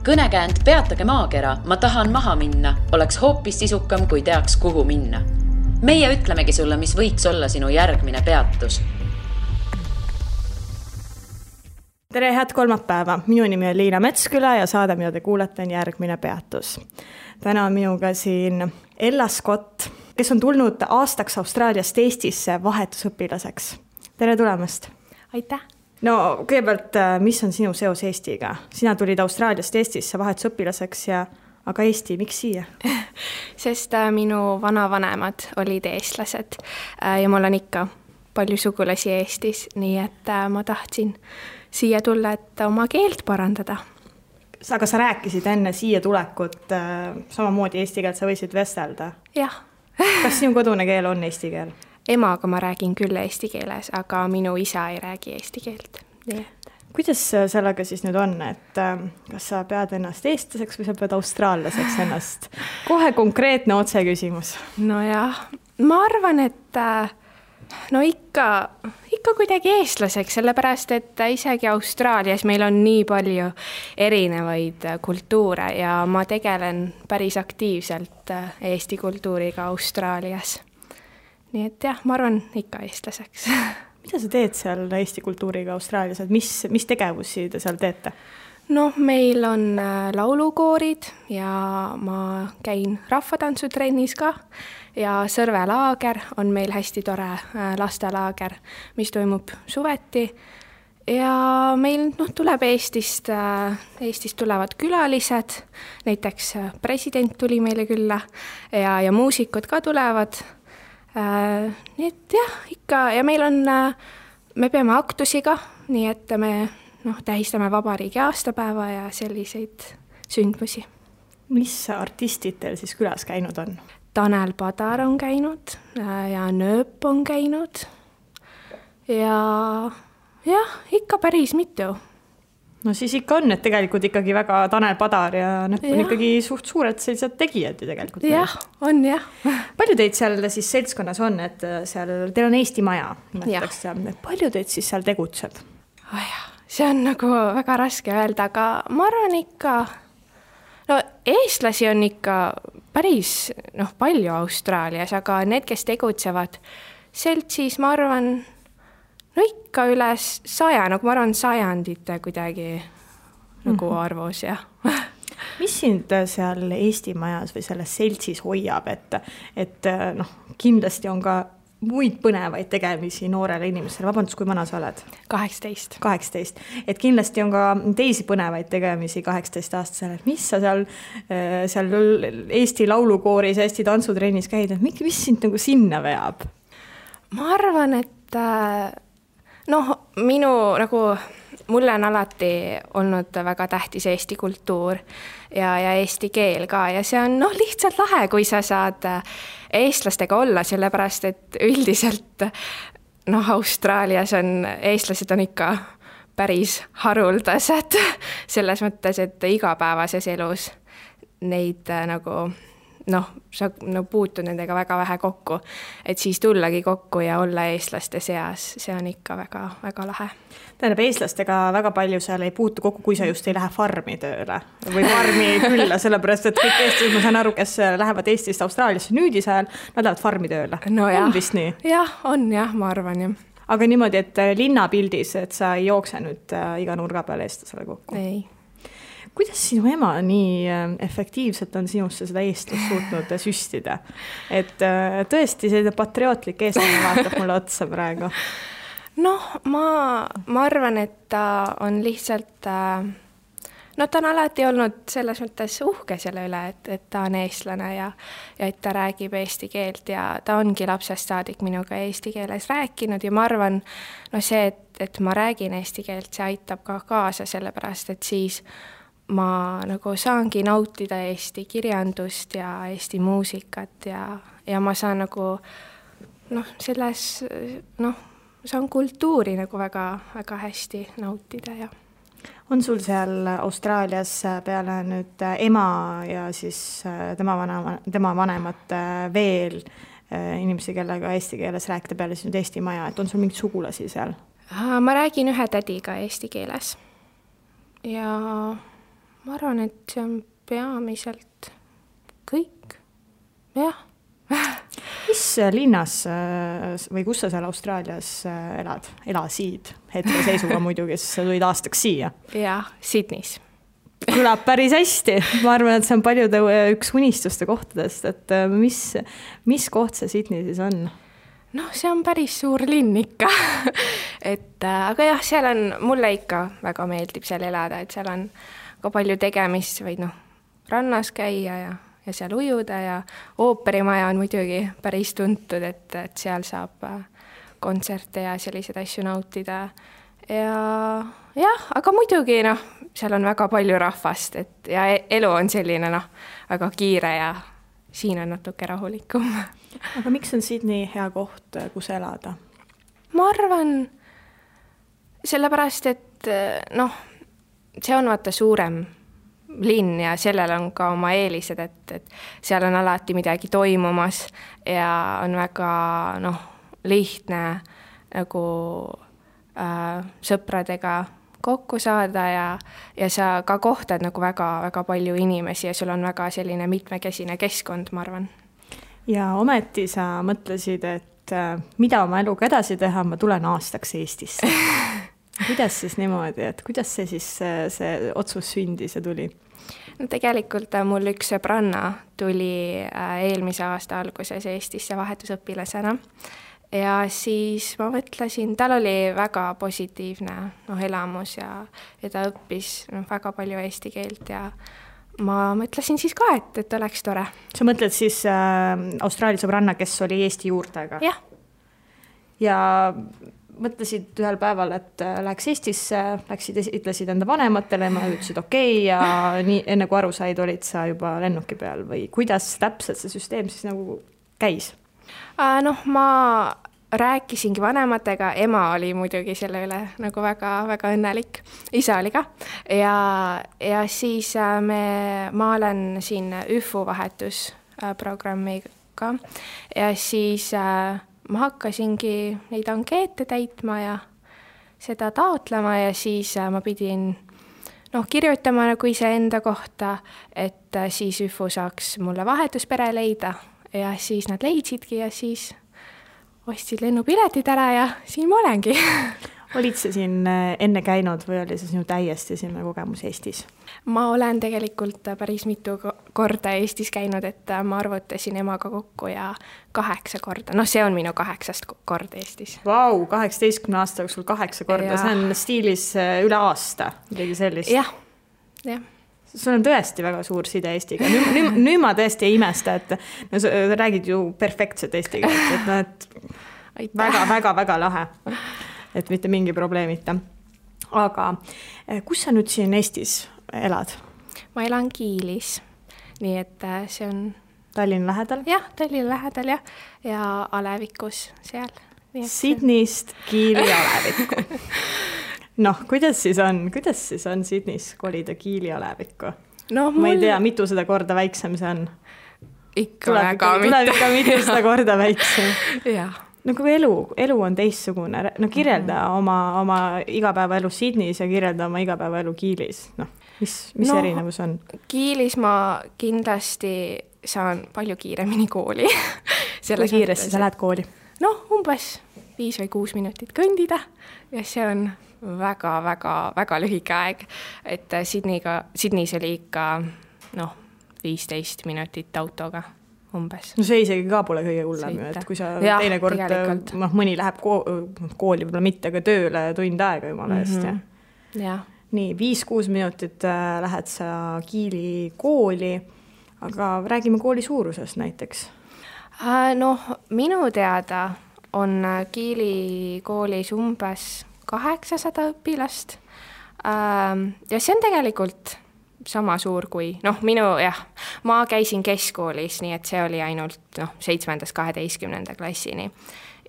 Kõnekäänd Peatage maakera, ma tahan maha minna, oleks hoopis sisukam, kui teaks, kuhu minna. Meie ütlemegi sulle, mis võiks olla sinu järgmine peatus. Tere, head kolmapäeva. Minu nimi on Liina Metsküla ja saade, mida te kuulete, on järgmine peatus. Täna on minuga siin Ella Scott, kes on tulnud aastaks Austraaliast Eestisse vahetusõpilaseks. Tere tulemast. Aitäh. No kõigepealt, mis on sinu seos Eestiga? Sina tulid Austraaliast Eestisse vahetusõpilaseks, aga Eesti, miks siia? Sest minu vanavanemad olid eestlased ja mul on ikka palju sugulasi Eestis, nii et ma tahtsin siia tulla, et oma keelt parandada. Aga sa rääkisid enne siia tulekut samamoodi eesti keelt, sa võisid vestelda? Jah. Kas sinu kodune keel on eesti keel? Emaga ma räägin küll eesti keeles, aga minu isa ei räägi eesti keelt. Nii et. Kuidas sellega siis nüüd on, et kas sa pead ennast eestlaseks või sa pead austraallaseks ennast? Kohe konkreetne otse küsimus. No jah, ma arvan, et ikka kuidagi eestlaseks, sellepärast, et isegi Austraalias meil on nii palju erinevaid kultuure ja ma tegelen päris aktiivselt eesti kultuuriga Austraalias. Nii et jah, ma arvan ikka eestlaseks. Mida sa teed seal Eesti kultuuriga Austraalias? Mis tegevusi te seal teete? No, meil on laulukoorid ja ma käin rahvatantsutrennis ka ja Sõrvelaager on meil hästi tore lastelaager, mis toimub suveti. Ja meil tuleb Eestist tulevad külalised, näiteks president tuli meile külla ja muusikud ka tulevad. Nii et jah, ikka ja me peame aktusiga, nii et me tähistame vabariigi aastapäeva ja selliseid sündmusi. Mis artistid teil siis külas käinud on? Tanel Padar on käinud ja Nööp on käinud ja jah, ikka päris mitu. No siis ikka on, et tegelikult ikkagi väga Tanel Padar ja Nööp on ikkagi suht suured sellised tegijad ju tegelikult. Jah, on jah. Palju teid seal siis seltskonnas on, et seal teil on Eesti maja? Palju teid siis seal tegutseb? See on nagu väga raske öelda, aga ma arvan ikka, eestlasi on ikka päris palju Austraalias, aga need, kes tegutsevad seltsis, ma arvan, ikka üle 100, ma arvan sajandite kuidagi nagu arvus, jah. Mis sind seal Eesti majas või selles seltsis hoiab, et kindlasti on ka muid põnevaid tegemisi noorele inimesele? Vabandust, kui vana sa oled? 18. Et kindlasti on ka teisi põnevaid tegemisi 18-aastasele. Mis sa seal Eesti laulukooris, Eesti tantsutrennis käid? Mis sind nagu sinna veab? Ma arvan, et mulle on alati olnud väga tähtis Eesti kultuur ja eesti keel ka ja see on lihtsalt lahe, kui sa saad eestlastega olla, sellepärast, et üldiselt Austraalias eestlased on ikka päris haruldased selles mõttes, et igapäevases elus neid sa puutud nendega väga vähe kokku, et siis tullagi kokku ja olla eestlaste seas, see on ikka väga, väga lahe. Tähendab, eestlastega väga palju seal ei puutu kokku, kui sa just ei lähe farmi tööle või farmi külla, sellepärast, et kõik eestlased, ma saan aru, kes lähevad Eestist Austraaliasse nüüdis ajal, nad lähevad farmi tööle. No jah. On vist nii? Jah, on jah, ma arvan jah. Aga niimoodi, et linnapildis, et sa ei jookse nüüd iga nurga peale eestlasele kokku? Ei. Kuidas sinu ema nii efektiivselt on sinusse seda eestlast suutnud süstida? Et tõesti selline patriootlik eestlane vaatab mulle otsa praegu. Ma arvan, et ta on lihtsalt, ta on alati olnud selles mõttes uhke selle üle, et ta on eestlane ja et ta räägib eesti keelt ja ta ongi lapsest saadik minuga eesti keeles rääkinud ja ma arvan, see, et ma räägin eesti keelt, see aitab ka kaasa sellepärast, et siis ma saangi nautida Eesti kirjandust ja Eesti muusikat ja ma saan saan kultuuri väga, väga hästi nautida ja. On sul seal Austraalias peale nüüd ema ja siis tema vanemad veel inimesi, kellega eesti keeles rääkida peale siis nüüd Eesti maja, et on sul mingid sugulasi seal? Ma räägin ühe tädiga eesti keeles ja ma arvan, et see on peamiselt kõik, jah. Mis linnas või kus sa seal Austraalias elasid hetkeseisuga muidugi, sest sa tulid aastaks siia? Jah, Sydneys. Kõlab päris hästi. Ma arvan, et see on paljude üks unistuste kohtadest, et mis koht see Sydney siis on? Noh, see on päris suur linn ikka. Aga jah, seal on, mulle ikka väga meeldib seal elada, et seal on ka palju tegemist, võid rannas käia ja seal ujuda ja ooperimaja on muidugi päris tuntud, et seal saab kontserte ja selliseid asju nautida. Ja jah, aga muidugi seal on väga palju rahvast, ja elu on selline väga kiire ja siin on natuke rahulikum. Aga miks on Sydney hea koht, kus elada? Ma arvan, sellepärast, et see on vaata suurem linn ja sellel on ka oma eelised, et seal on alati midagi toimumas ja on väga lihtne nagu sõpradega kokku saada ja sa ka kohtad nagu väga palju inimesi ja sul on väga selline mitmekesine keskkond, ma arvan. Ja ometi sa mõtlesid, et mida oma eluga edasi teha, ma tulen aastaks Eestisse. Kuidas siis niimoodi, et kuidas see siis see otsus sündis ja tuli? No tegelikult mul üks sõbranna tuli eelmise aasta alguses Eestisse vahetusõpilasena ja siis ma mõtlesin, tal oli väga positiivne elamus ja ta õppis väga palju eesti keelt ja ma mõtlesin siis ka, et oleks tore. Sa mõtled siis Austraalia sõbranna, kes oli Eesti juurtega? Jah. Ja mõtlesid ühel päeval, et läheks Eestisse, ütlesid enda vanematele, ma ütlesid okei, ja nii, enne kui aru said, olid sa juba lennuki peal või kuidas täpselt see süsteem siis nagu käis? Ma rääkisingi vanematega, ema oli muidugi selle üle nagu väga õnnelik, isa oli ka ja siis ma olen siin ÜFU vahetusprogrammiga ja siis ma hakkasingi neid ankeete täitma ja seda taotlema ja siis ma pidin kirjutama nagu iseenda kohta, et siis ÜFU saaks mulle vahetuspere leida ja siis nad leidsidki ja siis ostsid lennupiletid ära ja siin ma olengi. Olid sa siin enne käinud või oli see sinu täiesti esimene kogemus Eestis? Ma olen tegelikult päris mitu korda Eestis käinud, et ma arvutasin emaga kokku ja 8 korda. See on minu 8. kord Eestis. Vau, 18 aasta jooksul 8 korda, ja. See on stiilis üle aasta, midagi sellist. Jah. Sul on tõesti väga suur side Eestiga. Nüüd ma tõesti ei imesta, et sa räägid ju perfektset Eestiga, et väga lahe. Et mitte mingi probleemita. Aga kus sa nüüd siin Eestis elad? Ma elan Kiilis, nii et see on Tallinna lähedal? Jah, Tallinna lähedal ja Alevikus seal. Sydneyst Kiili Alevikku. Kuidas siis on Sydneys kolida Kiili Alevikku? Ma ei tea, mitu seda korda väiksem see on. Tuleb ikka mitu seda korda väiksem. Jah. Kui elu on teistsugune, kirjelda oma igapäevaelu Sydneys ja kirjelda oma igapäevaelu Kiilis. Mis erinevus on? Kiilis ma kindlasti saan palju kiiremini kooli. Kui kiiresti sa lähed kooli? Umbes 5 või 6 minutit kõndida ja see on väga lühike aeg, et Sydneys oli ikka 15 minutit autoga. Umbes. See isegi ka pole kõige hullem, et kui sa teine kord, mõni läheb kooli, võib-olla mitte, aga tööle tund aega jumala eest. Nii, 5-6 minutit lähed sa Kiili kooli, aga räägime kooli suurusest näiteks. Minu teada on Kiili koolis umbes 800 õpilast ja see on tegelikult sama suur kui, ma käisin keskkoolis, nii et see oli ainult 7.–12. klassini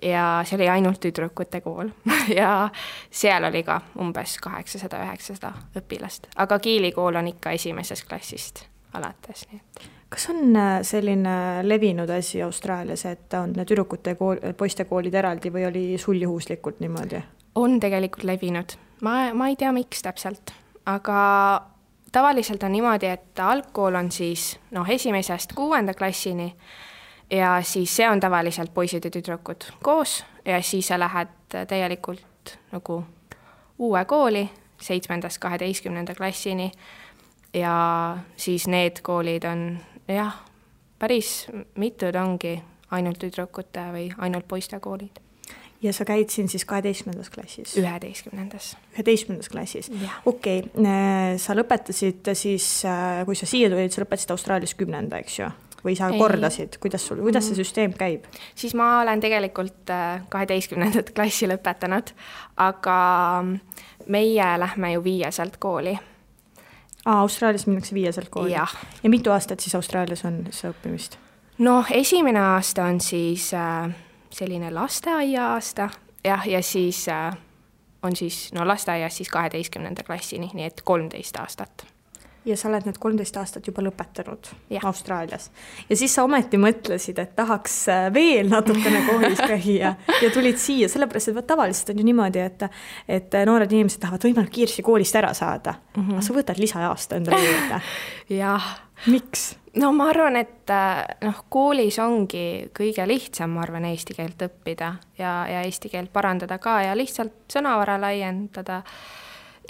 ja see oli ainult tüdrukute kool ja seal oli ka umbes 800-900 õpilast, aga Kiili kool on ikka esimesest klassist alates. Nii et. Kas on selline levinud asi Austraalias, et on tüdrukute poiste koolid eraldi või oli sul juhuslikult niimoodi? On tegelikult levinud. Ma ei tea, miks täpselt, aga tavaliselt on niimoodi, et algkool on siis 1.–6. klassini ja siis see on tavaliselt poisid ja tüdrukud koos ja siis sa lähed täielikult nagu uue kooli 7.–12. klassini ja siis need koolid on päris mitud ongi ainult tüdrukute või ainult poiste koolid. Ja sa käid siin siis 12. klassis? 11. klassis. Okei. Sa lõpetasid siis, kui sa siia tulid, sa lõpetasid Austraalias 10., eks ju? Või sa kordasid? Kuidas see süsteem käib? Siis ma olen tegelikult 12. klassi lõpetanud, aga meie lähme ju 5. kooli. Austraalias minnakse 5. kooli? Ja mitu aastat siis Austraalias on see õppimist? Esimene aasta on siis selline lasteaia aasta ja siis on siis lasteaias siis 12. klassini, nii et 13 aastat. Ja sa oled need 13 aastat juba lõpetanud Austraalias. Ja siis sa ometi mõtlesid, et tahaks veel natukene koolis käia ja tulid siia, sellepärast, et tavaliselt on ju niimoodi, et noored inimesed tahavad võimalik kiiresti koolist ära saada. Aga sa võtad lisaaasta endale juurde. Jah. Miks? Ma arvan, et koolis ongi kõige lihtsam, ma arvan, eesti keelt õppida ja eesti keelt parandada ka ja lihtsalt sõnavara laiendada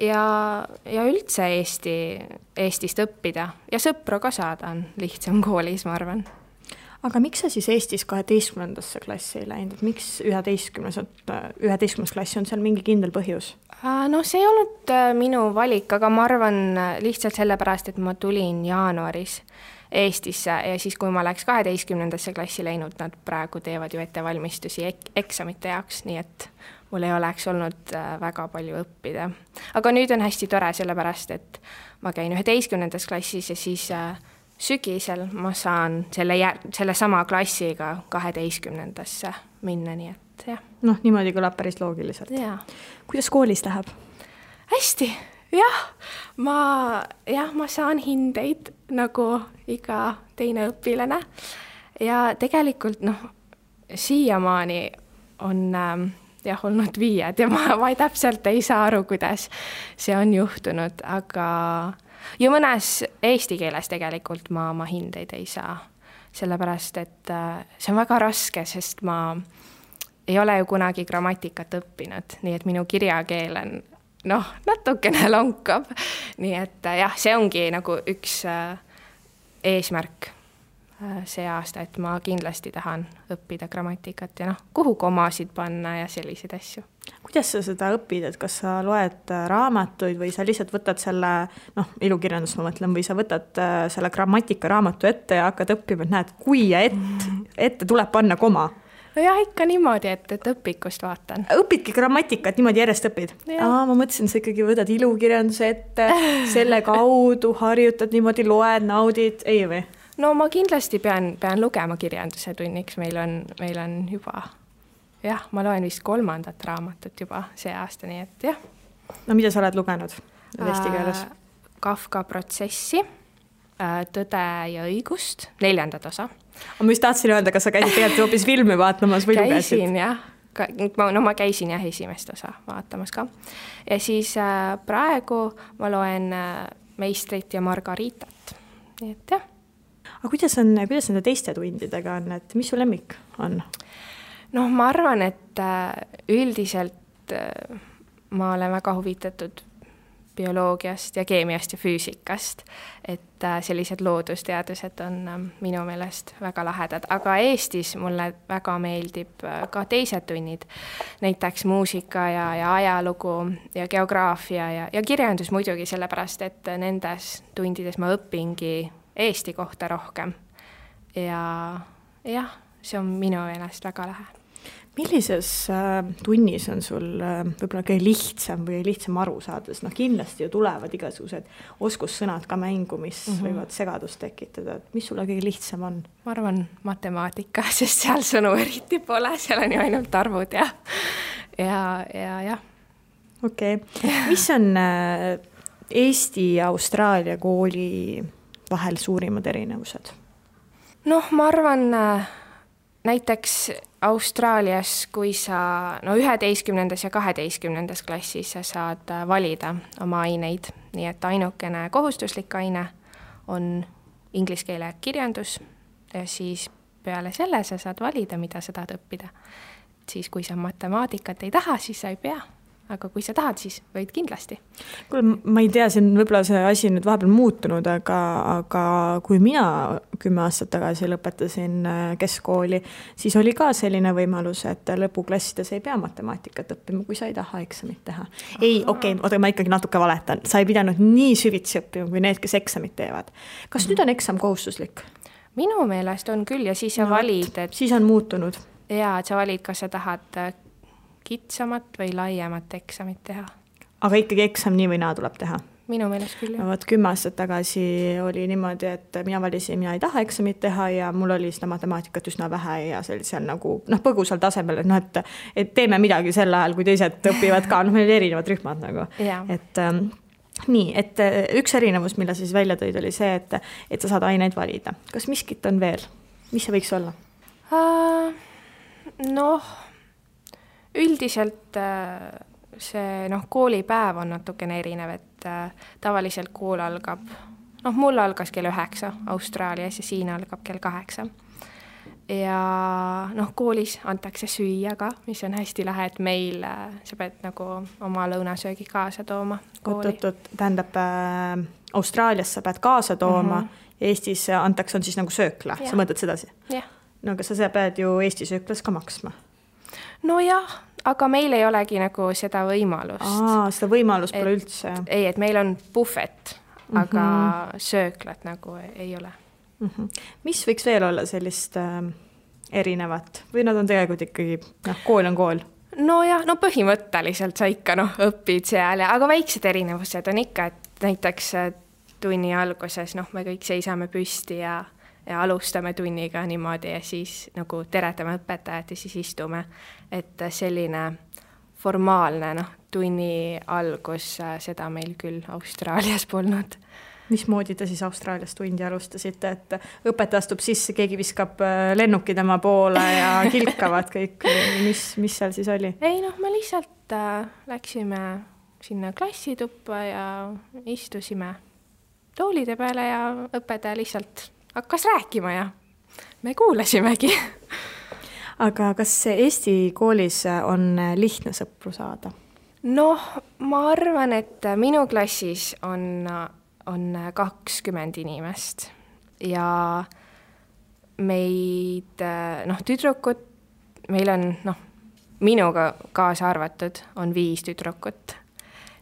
ja üldse Eestist õppida ja sõpru ka saada on lihtsam koolis, ma arvan. Aga miks sa siis Eestis 12. klassi ei läinud? Miks 11. klassi on seal mingi kindel põhjus? See ei olnud minu valik, aga ma arvan lihtsalt sellepärast, et ma tulin jaanuaris Eestisse ja siis, kui ma läks 12. klassi läinud, nad praegu teevad ju ettevalmistusi eksamite jaoks, nii et mul ei oleks olnud väga palju õppida. Aga nüüd on hästi tore sellepärast, et ma käin 11. klassis ja siis sügisel ma saan selle sama klassiga 12. minna, nii et jah. Niimoodi kõlab päris loogiliselt. Ja. Kuidas koolis läheb? Hästi, jah. Ma saan hindeid nagu iga teine õpilane ja tegelikult siiamaani on olnud 5 ja ma täpselt ei saa aru, kuidas see on juhtunud, aga ja mõnes eesti keeles tegelikult ma hindeid ei saa, sellepärast, et see on väga raske, sest ma ei ole ju kunagi grammatikat õppinud, nii et minu kirjakeel on natukene lonkab, nii et see ongi nagu üks eesmärk see aasta, et ma kindlasti tahan õppida grammatikat ja kuhu komasid panna ja selliseid asju. Kuidas sa seda õpid, et kas sa loed raamatuid või sa lihtsalt võtad selle, ilukirjandus ma mõtlen, või sa võtad selle grammatika raamatu ette ja hakkad õppima, et näed, kui ja ette tuleb panna koma? Jah, ikka niimoodi, et õpikust vaatan. Õpidki grammatikat, niimoodi järjest õpid? Ma mõtlesin, sa ikkagi võtad ilukirjanduse ette, selle kaudu harjutad, niimoodi loed, naudid, ei või? Ma kindlasti pean lugema kirjanduse tunniks, meil on juba, ma loen vist 3. raamatut juba see aasta, nii et jah. Mida sa oled lugenud eesti keeles? Kafka protsessi, Tõde ja õigust, 4. osa. Ma just tahtsin öelda, kas sa käisid tegelikult hoopis filmi vaatamas või lugesid? Käisin, jah. Ma käisin jah esimest osa vaatamas ka. Ja siis praegu ma loen Meistrit ja Margaritat, nii et jah. Aga kuidas nende teiste tundidega on, et mis su lemmik on? Ma arvan, et üldiselt ma olen väga huvitatud bioloogiast ja keemiast ja füüsikast, et sellised loodusteadused on minu meelest väga lahedad, aga Eestis mulle väga meeldib ka teised tunnid, näiteks muusika ja ajalugu ja geograafia ja kirjandus muidugi sellepärast, et nendes tundides ma õpingi Eesti kohta rohkem ja jah, see on minu meelest väga lahe. Millises tunnis on sul võib-olla kõige lihtsam või lihtsam aru saada? Kindlasti ju tulevad igasugused oskussõnad ka mängu, mis võivad segadust tekitada. Mis sulle kõige lihtsam on? Ma arvan matemaatika, sest seal sõnu eriti pole, seal on ju ainult arvud ja. Okei. Mis on Eesti ja Austraalia kooli vahel suurimad erinevused? Ma arvan näiteks Austraalias, kui sa 11. ja 12. klassis sa saad valida oma aineid nii et ainukene kohustuslik aine on inglise keele kirjandus ja siis peale selle sa saad valida, mida sa tahad õppida. Siis kui sa matemaatikat ei taha, siis sa ei pea. Aga kui sa tahad, siis võid kindlasti. Kuule, ma ei tea, siin võib-olla see asi nüüd vahepeal muutunud, aga kui mina 10 aastat tagasi lõpetasin keskkooli, siis oli ka selline võimalus, et lõpuklassides ei pea matemaatikat õppima, kui sa ei taha eksamit teha. Ei, oota, ma ikkagi natuke valetan. Sa ei pidanud nii süvitsi õppima, kui need, kes eksamit teevad. Kas nüüd on eksam kohustuslik? Minu meelest on küll ja siis sa valid, et... Siis on muutunud. Jaa, et sa valid, kas sa tahad kitsamat või laiemat eksamit teha. Aga ikkagi eksam nii või naa tuleb teha? Minu meelest küll, jah. Vaat 10 aastat tagasi oli niimoodi, et mina valisin, mina ei taha eksamit teha ja mul oli seda matemaatikat üsna vähe ja seal nagu põgusal tasemel, et teeme midagi sel ajal, kui teised õpivad ka, meil oli erinevad rühmad nagu. Et nii, et üks erinevus, mille siis välja tõid, oli see, et sa saad aineid valida. Kas miskit on veel? Mis see võiks olla? Üldiselt see koolipäev on natukene erinev, et tavaliselt kool algab, mul algas kell 9 Austraalias ja siin algab kell 8. Ja koolis antakse süüa ka, mis on hästi lahe, et meil sa pead nagu oma lõunasöögi kaasa tooma kooli. Tähendab, Austraalias sa pead kaasa tooma ja Eestis antakse on siis nagu söökla, sa mõtled sedasi? Jah. No aga sa pead ju Eesti sööklas ka maksma. No jah, aga meil ei olegi nagu seda võimalust. Seda võimalust pole üldse. Ei, et meil on buffet, aga sööklat nagu ei ole. Mis võiks veel olla sellist erinevat? Või nad on tegelikult ikkagi, kool on kool? No jah, põhimõtteliselt sa ikka õpid seal, aga väiksed erinevused on ikka, et näiteks tunni alguses me kõik seisame püsti ja alustame tunniga niimoodi ja siis nagu teretame õpetajat ja siis istume. Et selline formaalne tunni algus, seda meil küll Austraalias polnud. Mismoodi te siis Austraalias tundi alustasite, et õpetaja astub sisse, keegi viskab lennuki tema poole ja kilkavad kõik, mis seal siis oli? Ei, me lihtsalt läksime sinna klassituppa ja istusime toolide peale ja õpetaja lihtsalt hakkas rääkima ja me kuulasimegi. Aga kas Eesti koolis on lihtne sõpru saada? Ma arvan, et minu klassis on 20 inimest ja meid, tüdrukut, meil on, minuga kaasa arvatud on 5 tüdrukut.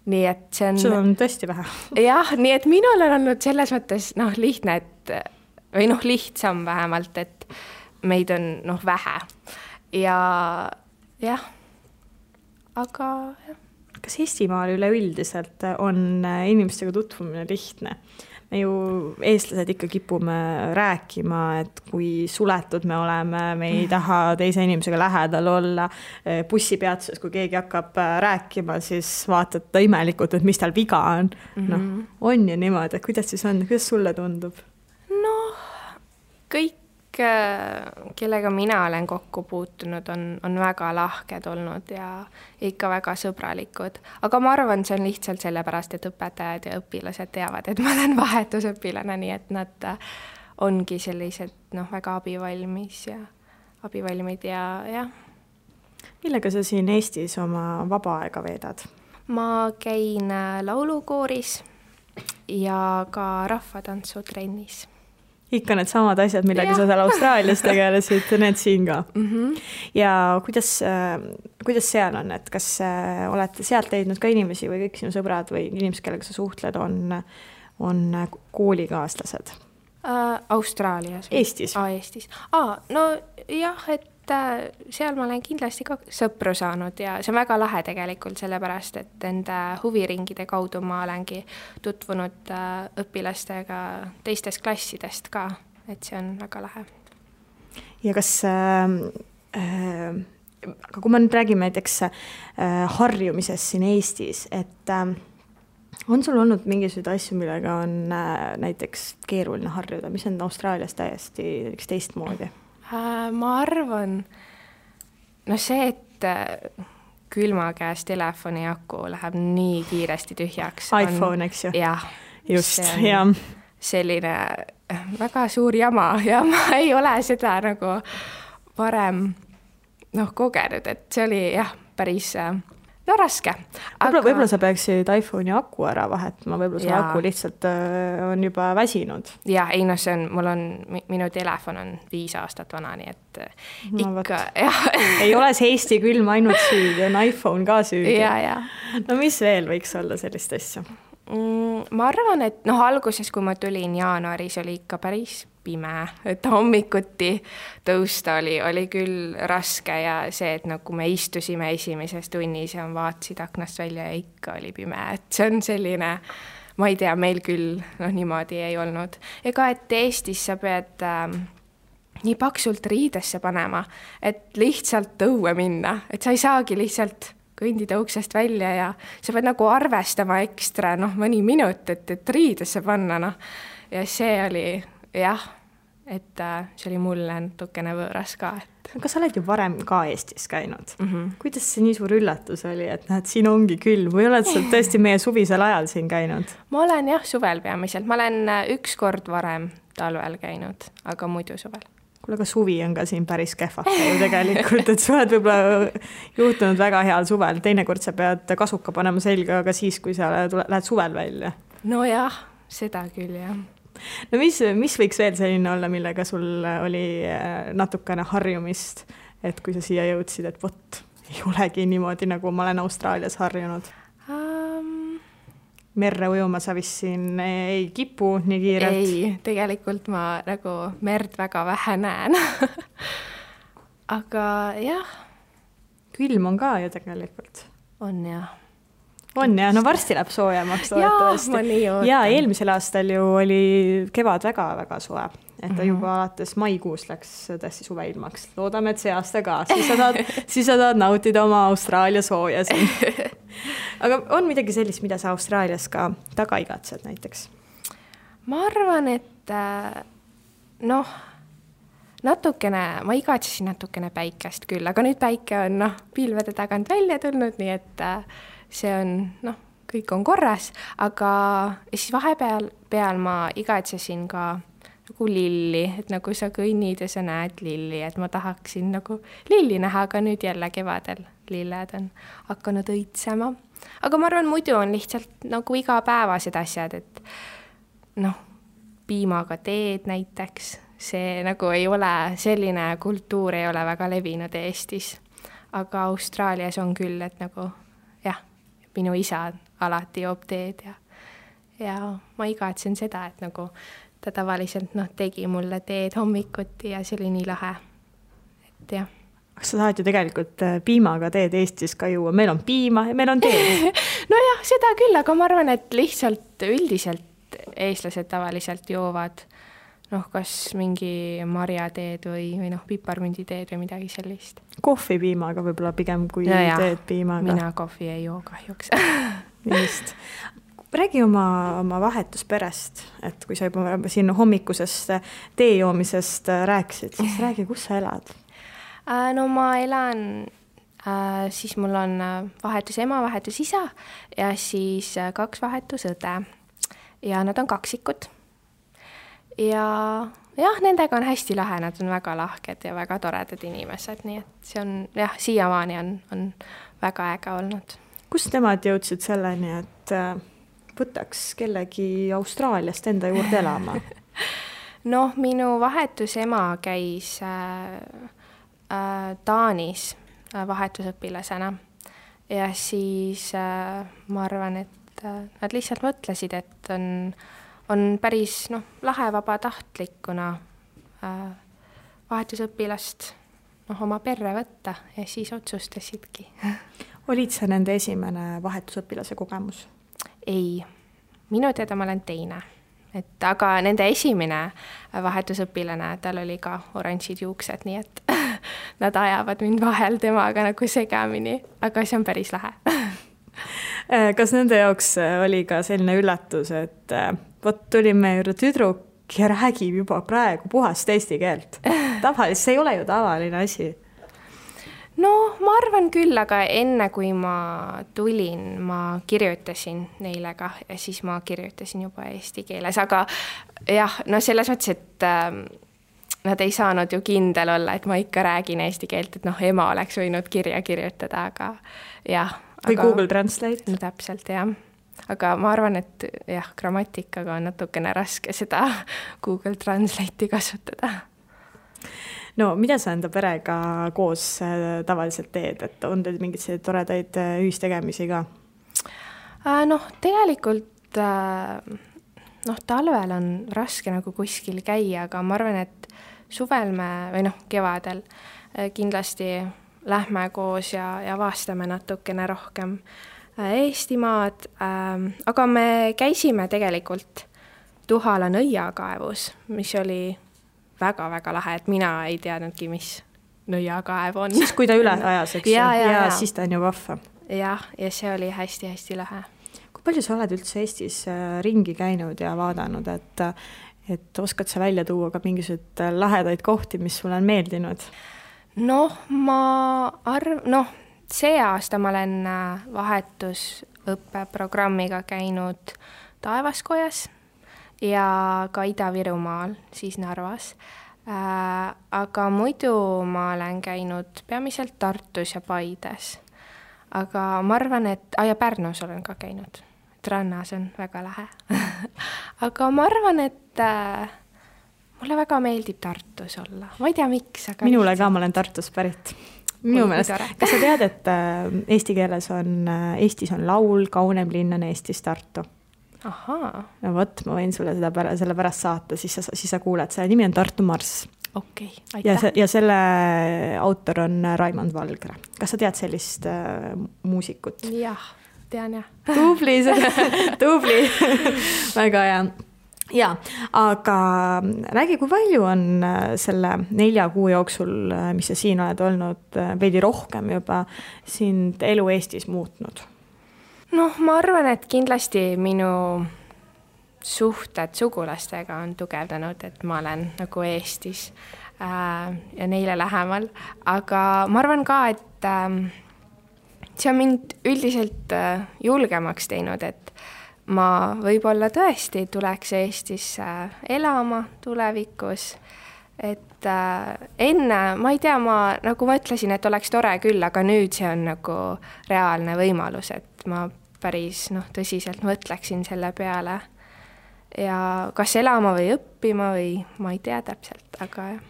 Nii et see on... Sul on tõesti vähe. Jah, nii et minul on olnud selles mõttes lihtne, või lihtsam vähemalt, et meid on vähe. Ja jah, aga... Kas Eestimaal üleüldiselt on inimestega tutvumine lihtne? Me ju eestlased ikka kipume rääkima, et kui suletud me oleme, me ei taha teise inimesega lähedal olla. Bussipeatuses, kui keegi hakkab rääkima, siis vaatad ta imelikult, et mis tal viga on. On ju niimoodi, et kuidas siis on? Kuidas sulle tundub? Kõik, kellega mina olen kokku puutunud, on väga lahked olnud ja ikka väga sõbralikud. Aga ma arvan, see on lihtsalt sellepärast, et õpetajad ja õpilased teavad, et ma olen vahetusõpilane, nii et nad ongi sellised väga abivalmid ja jah. Millega sa siin Eestis oma vaba aega veedad? Ma käin laulukooris ja ka rahvatantsutrennis. Ikka need samad asjad, millega sa seal Austraalias tegelesid, need siin ka. Ja kuidas seal on, et kas olete sealt leidnud ka inimesi või kõik sinu sõbrad või inimesed, kellega sa suhtled, on koolikaaslased? Austraalias. Eestis? Eestis. No jah, et seal ma olen kindlasti ka sõpru saanud ja see on väga lahe tegelikult sellepärast, et enda huviringide kaudu ma olengi tutvunud õpilastega teistest klassidest ka, et see on väga lahe. Ja kas, aga kui me nüüd räägime näiteks harjumisest siin Eestis, et on sul olnud mingisuguseid asju, millega on näiteks keeruline harjuda, mis on Austraalias täiesti teistmoodi? Ma arvan, see, et külma käes telefoni aku läheb nii kiiresti tühjaks. iPhone, eks ju? Jah. Just, jah. Selline väga suur jama ja ma ei ole seda nagu varem kogenud, et see oli jah, päris raske. Võib-olla sa peaksid iPhone'i aku ära vahetama, võib-olla see aku lihtsalt on juba väsinud. Ja, ei see on, minu telefon on 5 aastat vana, nii et ikka, jah. Ei ole see Eesti külm ainult süüdi, on iPhone ka süüdi. Ja. No mis veel võiks olla sellist asja? Ma arvan, et alguses, kui ma tulin jaanuaris, oli ikka päris pime, et hommikuti tõusta oli küll raske ja see, et kui me istusime esimeses tunnis ja vaatasid aknast välja ja ikka oli pime, et see on selline, ma ei tea, meil küll niimoodi ei olnud. Ega, et Eestis sa pead nii paksult riidesse panema, et lihtsalt õue minna, et sa ei saagi lihtsalt kõndida uksest välja ja sa pead arvestama ekstra mõni minut, et riidesse panna. Ja see oli, jah, et see oli mulle natukene võõras ka. Aga sa oled ju varem ka Eestis käinud. Kuidas see nii suur üllatus oli, et siin ongi külm või oled sa tõesti meie suvisel ajal siin käinud? Ma olen jah, suvel peamiselt. Ma olen 1 kord varem talvel käinud, aga muidu suvel. Kuule, aga suvi on ka siin päris kehvake ju tegelikult, et sa oled võib-olla juhtunud väga heal suvel. Teinekord sa pead kasuka panema selga, aga siis, kui sa lähed suvel välja. No jah, seda küll, jah. No mis võiks veel selline olla, millega sul oli natukene harjumist, et kui sa siia jõudsid, et vot, ei olegi niimoodi, nagu ma olen Austraalias harjunud? Merre ujuma sa vist siin ei kipu nii kiirelt? Ei, tegelikult ma merd väga vähe näen. Aga jah. Külm on ka ju tegelikult. On jah. On jah, no varsti läheb soojemaks. Ja eelmisel aastal ju oli kevad väga-väga soe. Et ta juba alates maikuus läks tõesti suveilmaks. Loodame, et see aasta ka. Siis sa tahad nautida oma Austraalia sooja siin. Aga on midagi sellist, mida sa Austraalias ka taga igatsed näiteks? Ma arvan, et natukene, ma igatsesin natukene päikest küll, aga nüüd päike on pilvede tagant välja tulnud, nii et see on, kõik on korras, aga siis vahepeal ma igatsesin ka lilli, et sa kõnnid ja sa näed lilli, et ma tahaksin lilli näha, aga nüüd jälle kevadel lilled on hakanud õitsema. Aga ma arvan, muidu on lihtsalt igapäevased asjad, et piimaga teed näiteks, see ei ole, selline kultuur ei ole väga levinud Eestis, aga Austraalias on küll, et jah, minu isa alati joob teed ja ma igatsen seda, et ta tavaliselt tegi mulle teed hommikuti ja see oli nii lahe, et jah. Kas sa tahad ju tegelikult piimaga teed Eestis ka juua? Meil on piima ja meil on teed. No jah, seda küll, aga ma arvan, et lihtsalt üldiselt eestlased tavaliselt joovad kas mingi marjateed või piparmünditeed või midagi sellist. Kohvi piimaga võib-olla pigem kui teed piimaga. Mina kohvi ei joo kahjuks. Just. Räägi oma vahetusperest, et kui sa juba siin hommikusest tee joomisest rääkisid, siis räägi, kus sa elad? No ma elan, siis mul on vahetus ema, vahetus isa ja siis 2 vahetus õde ja nad on kaksikud. Ja jah, nendega on hästi lahe, nad on väga lahked ja väga toredad inimesed, nii et see on, jah, siiamaani on väga äge olnud. Kus nemad jõudsid selleni, et võtaks kellegi Austraaliast enda juurde elama? Minu vahetus ema käis Taanis vahetusõpilasena ja siis ma arvan, et nad lihtsalt mõtlesid, et on päris lahe vabatahtlikuna vahetusõpilast oma perre võtta ja siis otsustasidki. Olid sa nende esimene vahetusõpilase kogemus? Ei, minu teada ma olen teine. Aga nende esimene vahetusõpilane, tal oli ka oranžid juuksed, nii et nad ajavad mind vahel temaga segamini, aga see on päris lahe. Kas nende jaoks oli ka selline üllatus, et vot tulime juurde tüdruk ja räägib juba praegu puhast eesti keelt? Tavaliselt see ei ole ju tavaline asi. No ma arvan küll, aga enne kui ma tulin, ma kirjutasin neile ka ja siis ma kirjutasin juba eesti keeles, aga jah, no selles mõttes, et nad ei saanud ju kindel olla, et ma ikka räägin eesti keelt, et ema oleks võinud kirja kirjutada, aga jah. Või Google Translate. No täpselt, jah. Aga ma arvan, et jah, grammatikaga on natukene raske seda Google Translate'i kasutada. No mida sa enda perega koos tavaliselt teed, et on teil mingeid toredaid ühistegemisi ka? Tegelikult talvel on raske nagu kuskil käia, aga ma arvan, et suvel kevadel kindlasti lähme koos ja vaastame natukene rohkem Eestimaad, aga me käisime tegelikult Tuhala nõiakaevus, mis oli väga-väga lahe, et mina ei teadnudki, mis nõiakaev on. Siis kui ta üle ajas, eks? Ja siis ta on ju vahva. Ja see oli hästi-hästi lahe. Kui palju sa oled üldse Eestis ringi käinud ja vaadanud, et oskad sa välja tuua ka mingisugused lahedaid kohti, mis sulle on meeldinud? See aasta ma olen vahetusõppeprogrammiga käinud Taevaskojas ja ka Ida-Virumaal, siis Narvas. Aga muidu ma olen käinud peamiselt Tartus ja Paides. Aga ma arvan, et ja Pärnus olen ka käinud. Rannas on väga lahe. Aga ma arvan, et mulle väga meeldib Tartus olla. Ma ei tea, miks. Aga minule ka, ma olen Tartus pärit. Minu meelest. Kas sa tead, et Eestis on laul Kaunem linn on Eestis Tartu? Ahaa. No võt, ma võin sulle selle pärast saata, siis sa kuuled. Selle nimi on Tartu Marss. Okei, aitäh. Ja selle autor on Raimond Valgre. Kas sa tead sellist muusikut? Jah, tean jah. Tubli, väga hea. Ja, aga räägi, kui palju on selle 4 kuu jooksul, mis sa siin oled olnud, veidi rohkem juba sind elu Eestis muutnud? Ma arvan, et kindlasti minu suhted sugulastega on tugevdanud, et ma olen nagu Eestis ja neile lähemal. Aga ma arvan ka, et see on mind üldiselt julgemaks teinud, et ma võib-olla tõesti tuleks Eestisse elama tulevikus. Et enne, ma ei tea, ma nagu mõtlesin, et oleks tore küll, aga nüüd see on nagu reaalne võimalus, et ma päris tõsiselt mõtleksin selle peale. Ja kas elama või õppima või ma ei tea täpselt, aga jah.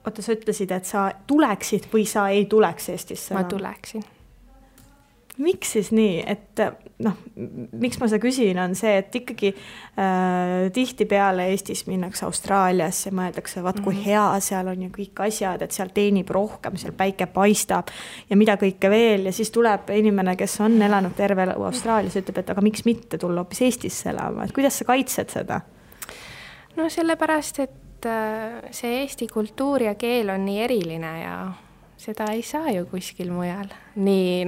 Oota, sa ütlesid, et sa tuleksid või sa ei tuleks Eestisse? Ma tuleksin. Miks siis nii, et miks ma seda küsin, on see, et ikkagi tihti peale Eestis minnakse Austraaliasse ja mõeldakse, vaat kui hea seal on ja kõik asjad, et seal teenib rohkem, seal päike paistab ja mida kõike veel ja siis tuleb inimene, kes on elanud terve Austraalias, ütleb, et aga miks mitte tulla hoopis Eestisse elama, et kuidas sa kaitsed seda? Sellepärast, et see Eesti kultuur ja keel on nii eriline ja seda ei saa ju kuskil mujal. Nii,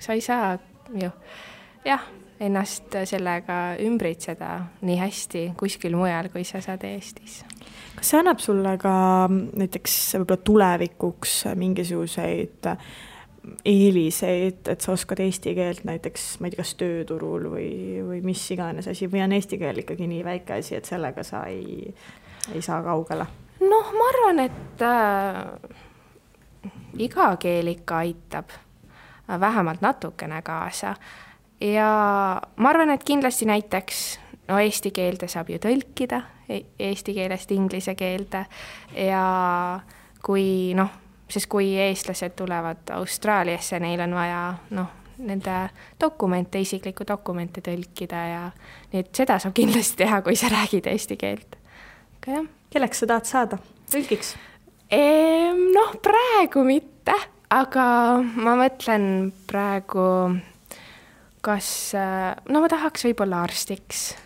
sa ei saa ju ennast sellega ümbritseda nii hästi kuskil mujal, kui sa saad Eestis. Kas see annab sulle ka näiteks võib-olla tulevikuks mingisuguseid eeliseid, et sa oskad eesti keelt näiteks, ma ei tea, kas tööturul või mis iganes asi, või on eesti keel ikkagi nii väike asi, et sellega sa ei saa kaugele? Ma arvan, et iga keel ikka aitab vähemalt natukene kaasa. Ja ma arvan, et kindlasti näiteks eesti keelde saab ju tõlkida, eesti keelest inglise keelde ja sest kui eestlased tulevad Austraaliasse, neil on vaja nende dokumente, isiklikku dokumente tõlkida ja nii et seda saab kindlasti teha, kui sa räägid eesti keelt. Kelleks sa tahad saada? Tõlgiks? Praegu mitte, aga ma mõtlen praegu, kas ma tahaks võib-olla arstiks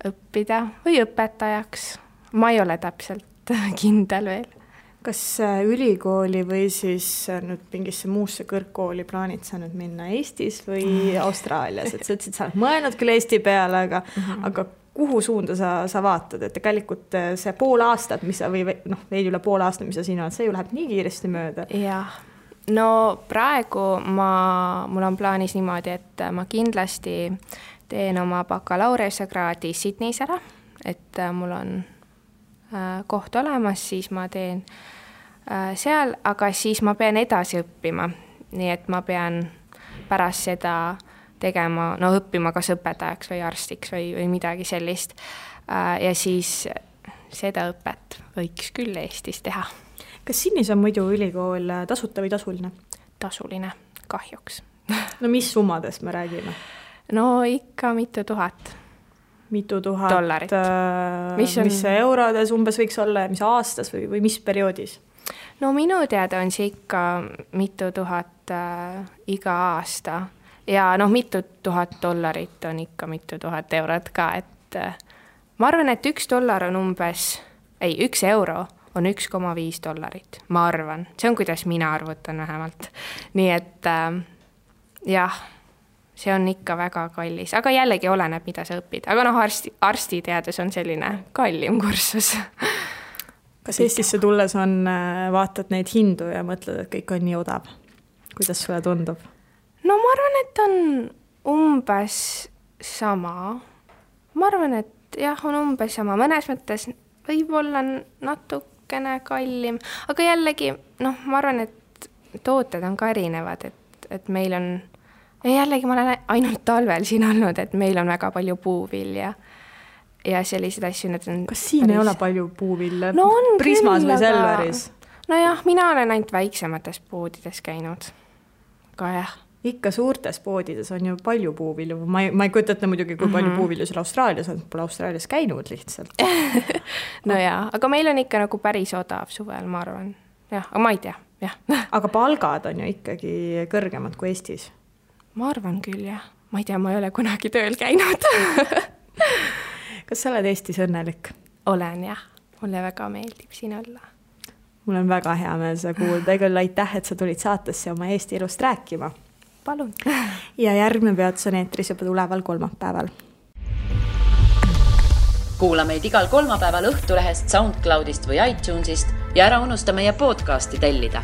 õppida või õpetajaks. Ma ei ole täpselt kindel veel. Kas ülikooli või siis nüüd mingisse muusse kõrgkooli plaanid sa nüüd minna Eestis või Austraalias? Et sa ütlesid, sa oled mõelnud küll Eesti peale, aga kuhu suunda sa vaatad? Et tegelikult see pool aastat, või veidi üle pool aastat, mis sa siin oled, see ju läheb nii kiiresti mööda. Jah, no praegu mul on plaanis niimoodi, et ma kindlasti teen oma bakalaureuskraadi Sydneys ära, et mul on koht olemas, siis ma teen seal, aga siis ma pean edasi õppima. Nii et ma pean pärast seda tegema, õppima kas õpetajaks või arstiks või midagi sellist. Ja siis seda õpet võiks küll Eestis teha. Kas Sydneys on muidu ülikool tasuta või tasuline? Tasuline, kahjuks. No mis summadest me räägime? No ikka mitu tuhat dollarit. Mis see eurodes umbes võiks olla ja mis aastas või mis perioodis? No minu teada on see ikka mitu tuhat iga aasta ja mitu tuhat dollarit on ikka mitu tuhat eurot ka, et ma arvan, et $1 on umbes, 1 euro on $1,5, ma arvan. See on, kuidas mina arvutan vähemalt. Nii et jah, see on ikka väga kallis, aga jällegi oleneb, mida sa õpid. Aga arstiteadus on selline kallim kursus. Kas Eestisse tulles vaatad neid hindu ja mõtled, et kõik on nii odav? Kuidas sulle tundub? No ma arvan, et on umbes sama. Ma arvan, et jah, on umbes sama. Mõnes mõttes võib-olla natukene kallim, aga jällegi, ma arvan, et tooted on ka erinevad, et meil on, ja jällegi ma olen ainult talvel siin olnud, et meil on väga palju puuvilja ja sellised asju. Kas siin ei ole palju puuvilja? No on Prismas küll, või Selveris? No jah, mina olen ainult väiksemates poodides käinud. Ka jah. Ikka suurtes poodides on ju palju puuvilju. Ma ei kujuta ette muidugi, kui palju puuvilju seal Austraalias on. Pole Austraalias käinud lihtsalt. No jaa, aga meil on ikka nagu päris odav suvel, ma arvan. Jah, aga ma ei tea. Jah. Aga palgad on ju ikkagi kõrgemad kui Eestis? Ma arvan küll, jah. Ma ei tea, ma ei ole kunagi tööl käinud. Kas sa oled Eestis õnnelik? Olen, jah. Mulle väga meeldib siin olla. Mul on väga hea meel seda kuulda. Küll aitäh, et sa tulid saatesse oma Eesti elust rääkima. Palun. Ja järgmine peatus on eetris juba tuleval kolmapäeval. Kuula meid igal kolmapäeval Õhtulehest, SoundCloudist või iTunesist ja ära unusta meie podcasti tellida.